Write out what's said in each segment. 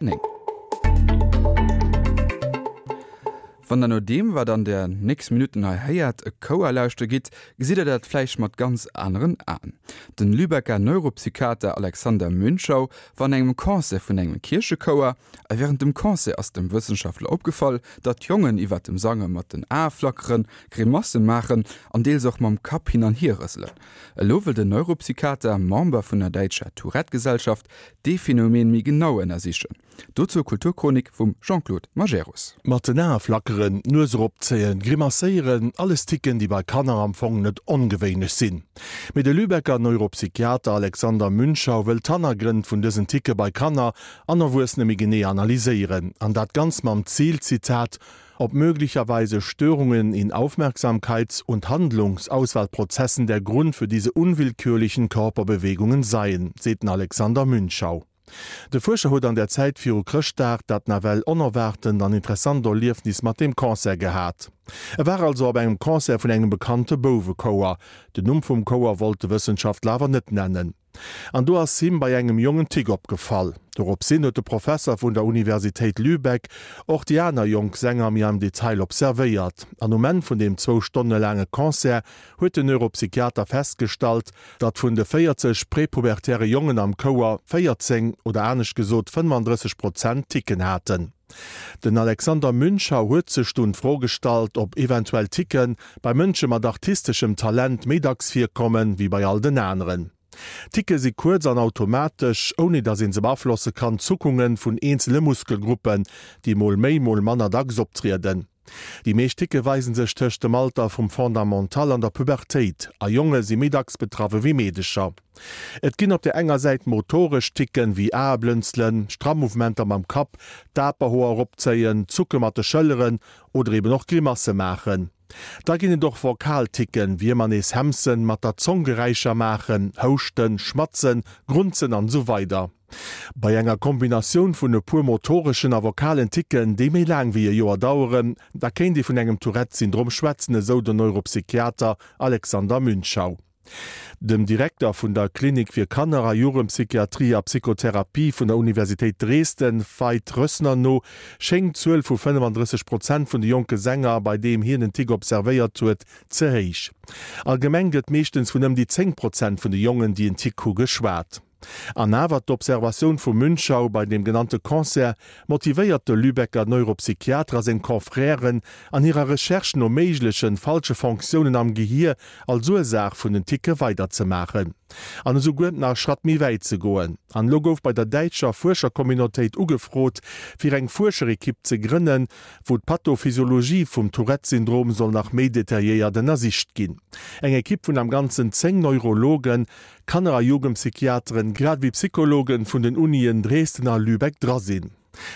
9. Wann der no deem, wat an der nächst Minutten hei héiert, e Chouer lauschte gitt, gesitt der dat vläicht mat ganz aneren Aen. Den Lübecker Neuropsychiater Alexander Münchau war an engem Concert vun engem Kierchechouer a wärend dem Concert ass dem Wëssenschaftler opgefall, datt d'Jongen iwwer dem Sange mat den Ae flackeren, Grimasse maachen an deels och mam Kapp hin an hier rëselen. Elo wëll den Neuropsychiater, Member vun der däitscher Tourette-Gesellschaft, dee Phänomen méi genau ënnersichen. Dozou Kulturchronik vum Jean-Claude Majerus. Mat den Ae flackeren, d'Nues eropzéien, grimacéieren, alles Ticken, déi bei Kanner am Fong net ongewéinlech sinn. Mee de Lübecker Neuropsychiater Alexander Münchau wëll d'Hannergrënn vun dësen Ticke bei Kanner an Erwuessene méi genee analyséieren. An dat ganz mam Zil, Zitat, ob möglicherweise Störungen in Aufmerksamkeits und Handlungsauswahlprozessen der Grund für diese unwillkürlichen Körperbewegungen seien, seet den Alexander Münchau. De Fuerscher huet an der Zäit viru Chrëschtdag dat nawell onerwaartent an interessant Erliefnis mat deem Concert gehat. E war also op engem Concert vun engem bekannte Bouwechouer. Den Numm vum Chouer wollt de Wëssenschaftler awer net nennen. An do ass him bei engem Jong en Tick opgefall. Doropshin huet de Professer vun der Universitéit Lübeck och déi aner jonk Sänger méi am Detail observéiert. An um Enn vun deem zwou Stonne laange Concert huet den Neuropsychiater festgestallt, datt vun de 40 prepubertäre Jongen am Chouer 14, oder anescht gesot 35 Prozent, Ticken haten. Den Alexander Münchau huet sech dunn d'Fro gestallt, ob eventuell Ticke bei Mënsche mat artisteschem Talent méi dacks virkommen, wéi bei all den aneren. Ticke si kuerz an automatesch, ouni datt ee se beaflosse kann, Zuckunge vun eenzele Muskelgruppen, déi mol méi, mol manner dacks optrieden. Déi meescht Ticke weise sech tëscht dem Alter vum Fondamental an der Pubertéit, a Jonge si méi dacks betraff ewéi Meedecher. Et ginn op der enger Säit motoresch Ticken, wéi Aeblënzelen, stramm Mouvementer mam Kapp, d'Aperhoer eropzéien, Zucke mat de Schëlleren oder eben och Grimasse maachen. Da ginn et och vokal Ticken, wéi ëmmer nees hemsen, mat der Zong Geräischer maachen, houschten, schmatzen, grunzen an esou weider. Bei enger Kombinatioun vun e puer motoreschen a vokalen Ticken, déi méi laang wéi e Joer daueren, da kéint ee vun engem Tourette-Syndrom schwätzen, esou den Neuropsychiater Alexander Münchau. Dem Direkter vun der Klinik fir Kanner a Jugendpsychiatrie a Psychotherapie vun der Universitéit Dresden, Veit Rössner, no schéngt d'Zuel vu 35 Prozent vun de jonke Sänger, bei deem hien en Tic observéiert huet, ze héich. Allgemeng gëtt meeschtens vun ëm déi 10 Prozent vun de Jongen, déi en Tic hu, geschwat. An awer, d'Observatioun vum Münchau bei deem genannte Concert motivéiert de Lübecker Neuropsychiater a seng Confrèren an hirer Recherche no méiglechen falsche Fonctiounen am Gehier als Ursaach vun den Ticke weiderzemaachen. An esouguer nach e Schratt méi wäit ze goen. An elo gouf bei der däitscher Fuerschercommunautéit ugefrot, fir eng Fuerscherekipp ze grënnen, wou d'Pathophysiologie vum Tourette-Syndrom soll nach méi detailléiert ënnersicht ginn. Eng Ekipp vun am Ganzen 10 Neurologen, Kanner a Jugendpsychiateren, grad ewéi Psychologen vun den Unien Dresden a Lübeck dra sinn.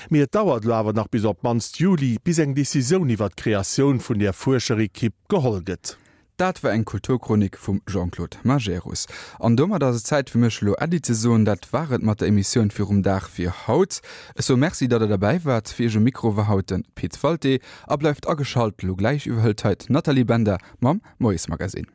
Mee et dauert elo awer nach bis op d'mannst Juli, bis eng Decisioun iwwer d'Kreatioun vun där Fuerscherekipp geholl gëtt. Dat war eng Kulturchronik vum Jean-Claude Majerus. An domat ass et Zäit fir mech elo Äddi ze soen. Dat war et mat der Emissioun virum Dag fir haut. Ech soe Merci, datt der derbäi waart. Fir iech um Mikro war haut de Pit Walté. A bleift ageschalt, elo gläich iwwerhëlt hei d'Nathalie Bender mam Moiesmagazin.